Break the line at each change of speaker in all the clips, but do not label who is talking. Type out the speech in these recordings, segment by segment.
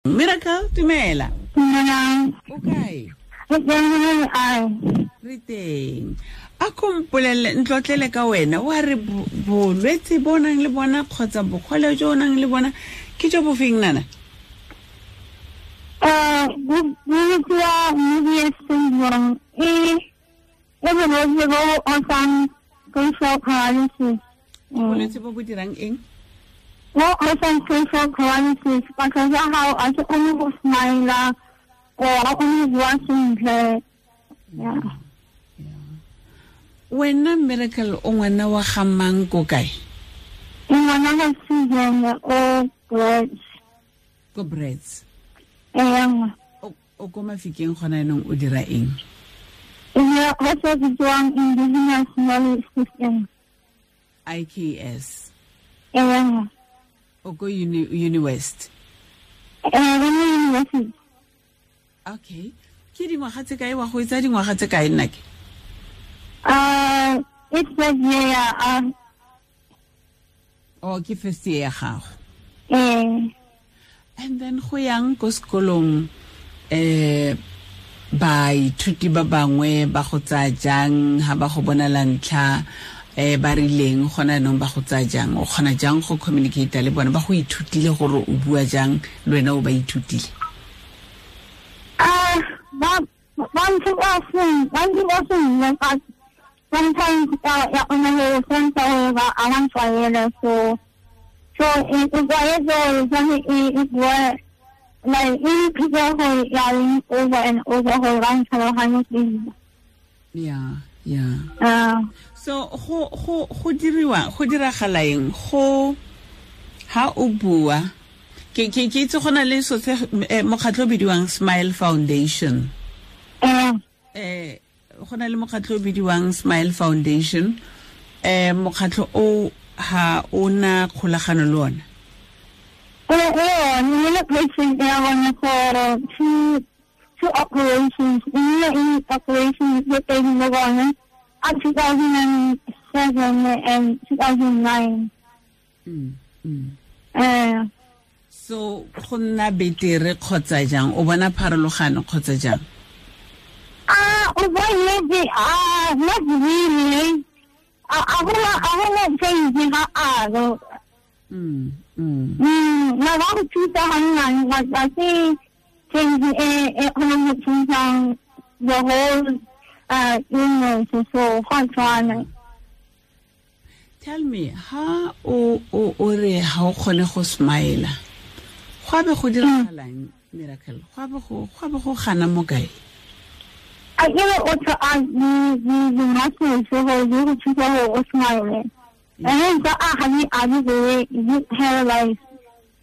Miracle, dumela.
Dumelang.
O kae?
Re
Re teng. A ko mpolelele, ntlotlele ka wena, wa re bolwetse bo o nang le bona kgotsa bogole jo o nang le bona ke jo bo feng, nana?
Bo bitsiwa Mobius syndrome. E e bolwetse bo bo osang facial paralysis.
Ke bolwetse bo bo dirang eng?
Bo osang facial paralysis. Batho ba gago a se kgone go smile or a kgone go bua sentle. Yeah.
Wena Miracle, o ngwana wa ga mang, ko kae?
Ke ngwana ga Susan o Brits.
Ko Brits.
Ee.
O ko Mafikeng gona yanong, o dira eng?
E dira go se bitsiwang Indigenous Knowledge System.
IKS.
Ee.
O ko Uniwest?
Ee, re mo university.
Okay. Ke dingwaga tse kae wa go etsa dingwaga tse kae, nna ke?
It's first year ya.
Oh, ke first year ya gago.
Ee.
And then go yang ko sekolong, baithuti ba bangwe ba go tsaya jang ha ba go bona la ntlha, ba rileng gona yanong ba go tsaya jang, o kgona jang go communicate le bona, ba go ithutile gore o bua jang le wena o ba ithutile?
Ba ntse ba seng, ba ntse ba seng, ba sometimes ya kgona go sense gore ba a ba ntlwaela, so e tlwaetse gore tshwane e bua like e repeat gore ya reng over and over gore ba ntlhaloganye sentle.
So go diriwa, go diragala eng go ha o bua? Ke itse go na le so se mokgatlho o bidiwang Smile Foundation. Go na le mokgatlho o bidiwang Smile Foundation. Mokgatlho o ha o na kgolagano le ona?
Ee, ne le patient ya bone for two operations. E nnile in operations tse pedi le bone a 2007 and 2009.
So go nna betere kgotsa jang, o bona pharologano kgotsa jang?
O bona nnete, not really. A gona change ga alo. Na ba go thusa ga nnyane, but ga se change e kgonang go thusa the whole illness, so go a tshwana.
Tell me, ha o re ha o kgone go smile, go a be go diragalang, Miracle? Go a be go gana mo kae?
A ke re o tla a di muscles gore di go thusa gore o smile. And then tsa a ga di a di be di paralyzed.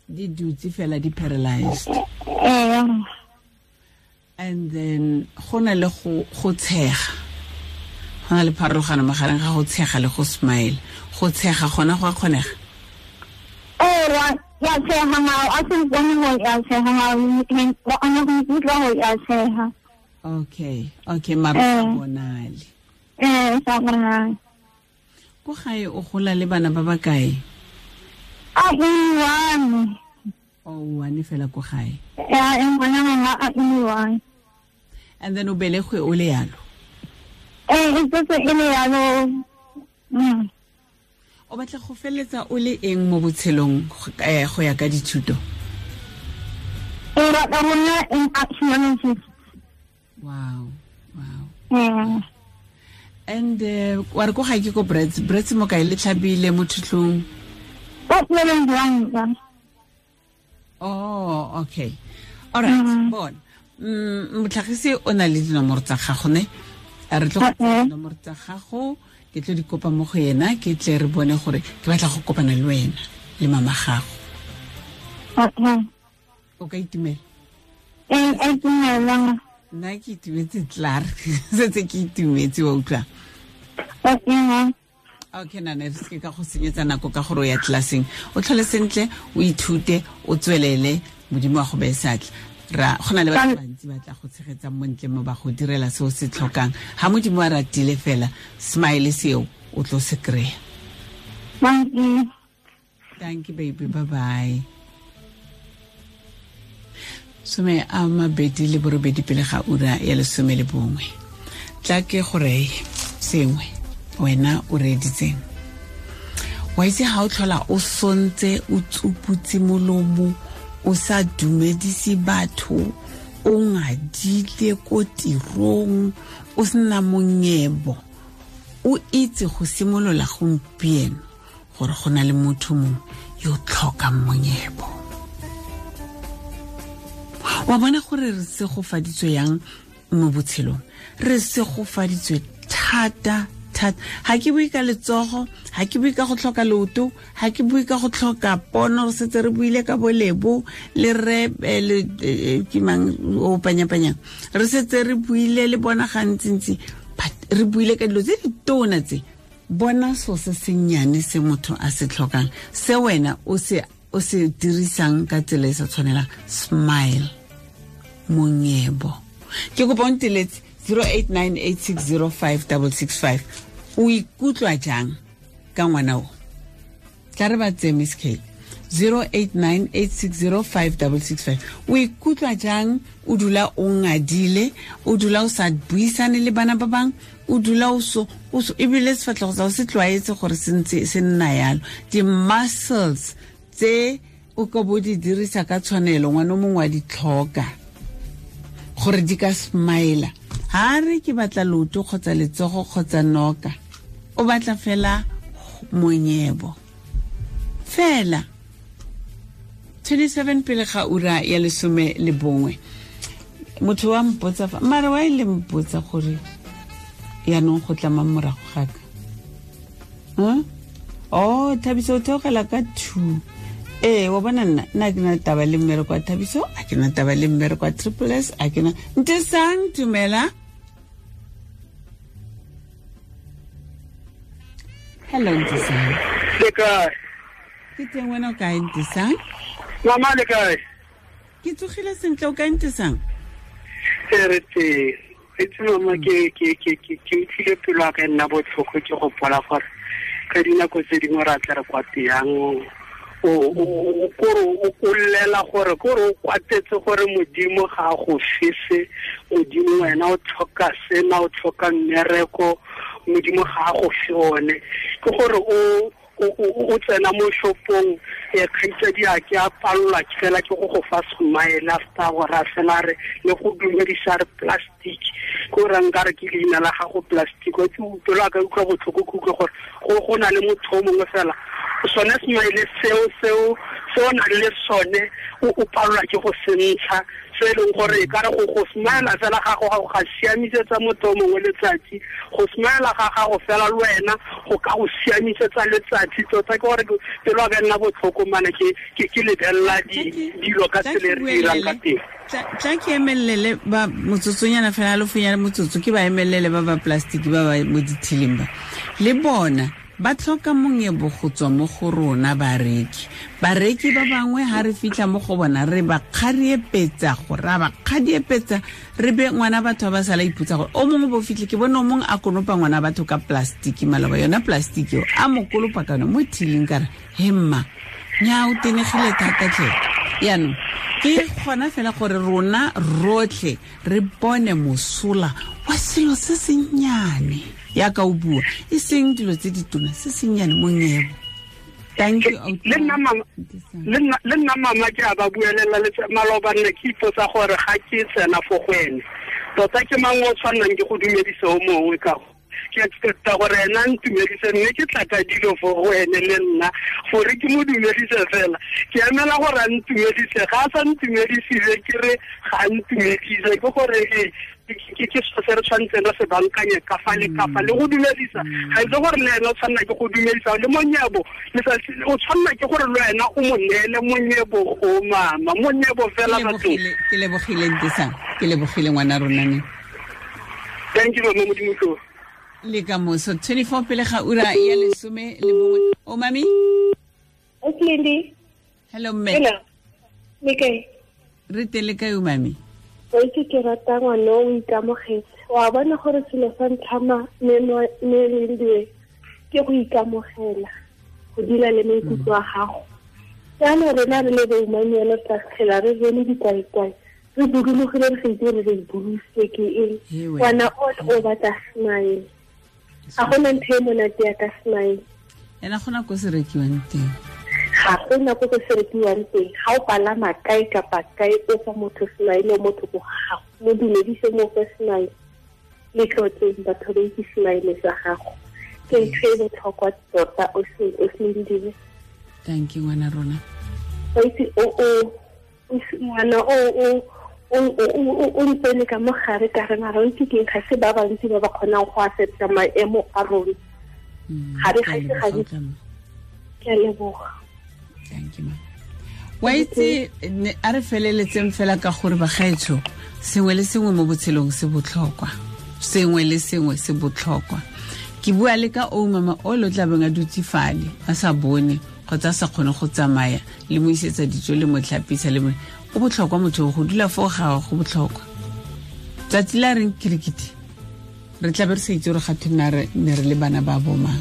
Di dutse fela di paralyzed.
Ee.
And then go na le go tshega. Go na le pharologano magareng ga go tshega le go smile. Go tshega gona go a kgonega?
Ee, wa tshega mao, a se bone gore ya tshega mao, wa kgona go ikutlwa gore ya tshega.
Okay, mara sa bonale.
Ee, sa bonale.
Ko gae o gola le bana ba ba kae?
A e one.
O one fela ko gae?
Ya, e ngwana mama a e one.
And then o belegwe o le yalo?
Ee, e tsetse e le yalo.
O batla go feleletsa o le eng mo botshelong, go ya ka dithuto?
E batla go nna an archaeologist.
Wow. And wa re ko gae ke ko Brits, Brits mo kae, le tlhabile mo Thutlong?
Ko Tlelang.
Oh, okay. All right, bona. Motlhagisi o na le dinomoro tsa gago ne? A re tlo go dinomoro tsa gago, ke tlo di kopa mo go yena, ke tle re bone gore ke batla go kopana le wena le mama gago. O ka itumela?
Ee, a itumela.
Nna ke itumetse tlar. Setse ke itumetse, wa utlwa?
Okay.
Okay, nana, re seke ka go senyetsa nako ka gore o ya tlelaseng. O tlhole sentle, o ithute, o tswelele, Modimo wa go beye seatla. Ra go na le batho bantsi ba tla go tshegetsang mo ntle mo ba go direla se o se tlhokang. Ha Modimo a ratile fela, smile seo o tlo se kry-a.
Thank you.
Thank you, baby. Bye-bye. 28 pele ga ura ya 11. Tla ke gore sengwe wena o reeditseng. Wa itse ha o tlhola o sontse o tsuputse molomo o sa dumedise batho o ngadile ko tirong o sena monyebo o itse go simolola gompieno gore go na le motho mongwe yo tlhokang monyebo. Wa bona gore re segofaditswe yang mo botshelong, re segofaditswe thata thata. Ha ke bue ka letsogo, ha ke bue ka go tlhoka leoto, ha ke bue ka go tlhoka pono, re setse re buile ka bolebo le re le ke mang o panyapanyang, re setse re buile le bona gantsintsi, but re buile ka dilo tse di tona tse. Bona so se sennyane se motho a se tlhokang, se wena o se dirisang ka tsela e sa tshwanelang. Smile, monyebo. Ke kopa o nteletse 0898605665. O ikutlwa jang ka ngwana o? Tla re ba tseye Miss K. 0898605665. O ikutlwa jang o dula o ngadile, o dula o sa buisane le bana ba bang, o dula o so ebile sefatlhego sa o se tlwaetse gore se ntse se nna yalo. Di-muscles tse o ka bo di dirisa ka tshwanelo, ngwana o mongwe wa di tlhoka gore di ka smile. Ha re ke batla leoto kgotsa letsogo kgotsa noka, o batla fela monyebo fela. 27 pele ga ura ya 11. Motho wa mpotsa fa mara wa ile mpotsa gore yaanong go tla mang morago ga ka. Oh, Thabiso o theogela ka 2. Ee, wa bona nna ke na taba le mmereko wa Thabiso, a ke na taba le mmereko wa Triple S, a ke na. Ntesang, dumela. Hello, Ntesang.
Le kae?
Ke teng, wena o kae, Ntesang?
Mama, le kae?
Ke tsogile sentle, o kae, Ntesang?
Re teng. Itse mama, ke utlwile pelo ya ka e nna botlhoko ke gopola gore ka dinako tse dingwe ra tla re kwa teyang o llela gore kore o kwatetse gore Modimo ga a go fese, Modimo wena o tlhoka sena, o tlhoka mmereko, Modimo ga a go fe one. Ke gore o tsena mo shopong, kgaitsadi a ke a palelwa fela ke go go fa smile after gore a fela re le go dumedisa re plastic, ke o rang ka re ke leina la gago plastic. Wa itse pelo a ka utlwa botlhoko, ke utlwe gore go na le motho o mongwe fela sone smile seo se o nang le sone o palelwa ke go se ntsha, se e leng gore e ka re go smile fela ga gago ga siamisetsa motho o mongwe letsatsi, go smile ga gago fela le wena go ka go siamisetsa letsatsi. Tota ke gore pelo a ka nna botlhoko mane ke lebelela dilo ka tsela e re dirang ka teng.
Tla ke emelele ba motsotsonyana fela, halofonyana motsotso, ke ba emelele ba ba plastic ba ba mo dithiling ba. Le bona ba tlhoka monyebo go tswa mo go rona bareki. Bareki ba bangwe ha re fitlha mo go bona re ba kgariepetsa go ra ba kgadiepetsa, re be ngwana batho ba sala ipotsa gore o mongwe bo fitlhe. Ke bone o mongwe a konopa ngwana batho ka plastic maloba, yona plastic eo a mo kolopa ka yona mo thiling, ka re he mma nya o tenegile thata tlhe. Yaanong ke gona fela gore rona rotlhe re bone mosola wa selo se sennyane yaka o bua, e seng dilo tse ditona, se sennyane monyebo. Thank you.
Le nna mama ke a ba buelela maloba, nne ke ipotsa gore ga ke tsena fo go ene tota ke mang o tshwannang ke go dumedise o mongwe ka ke expecta gore ena a ntumedise, mme ke tla ka dilo fo go ene le nna gore ke mo dumedise fela. Ke emela gore a ntumedise, ga a sa ntumedisile ke re ga a ntumedise, ke gore ke se re tshwanetseng re se bankanye ka fa le ka fa le go dumedisa. Ga itse gore le ena o tshwanela ke go dumedisa le monyebo, o tshwanela ke gore le wena o mo neele monyebo o mama, monyebo fela batho.
Ke lebogile Ntesang, ke lebogile ngwana rona ne.
Thank you mama, Modimo tlo.
Le ka moso 24 pele ga ura ya 11. O mami?
Lindi.
Hello mme.
Hello. Le kae?
Re teng le kae o mami?
O itse ke rata ngwana o ikamogetse. Wa bona gore selo sa ntlha me Lindiwe ke go ikamogela, go dula le maikutlo a gago. Jaanong rena re le boumanyelo tla tlhela re bone dikwaikwai. Re budulogile re sa itse re re budulositse ke eng. Ngwana o batla smile. Ga gona ntho e monate ya ka smile.
Ena gona ko se rekiwang teng.
Ga gona ko se rekiwang teng. Ga o palama kae kapa kae o fa motho smile, motho ko gago. Mo dumedise mo fe smile. Le tlotleng batho ba itse smile sa gago. Ke ntho e botlhokwa tota o se dire.
Thank you ngwana rona.
Wa itse o ngwana o ntsene ka mogare ka re mara ntse ke ga se ba bantsi ba ba kgonang go accepta maemo a rona. Ga re ga se ke a leboga.
Thank you ma. Wa itse a re feleletseng fela ka gore bagaetsho sengwe le sengwe mo botshelong se botlhokwa. Sengwe le sengwe se botlhokwa. Ke bua le ka o mama o lo tla beng a dutse fale a sa bone kgotsa a sa kgone go tsamaya le mo isetsa dijo le mo tlhapisa le mo o botlhokwa motho go dula foo ga go botlhokwa. Tsatsi la reng kirikiti re tla be re sa itse gore ga thwe ne re le bana ba bomang.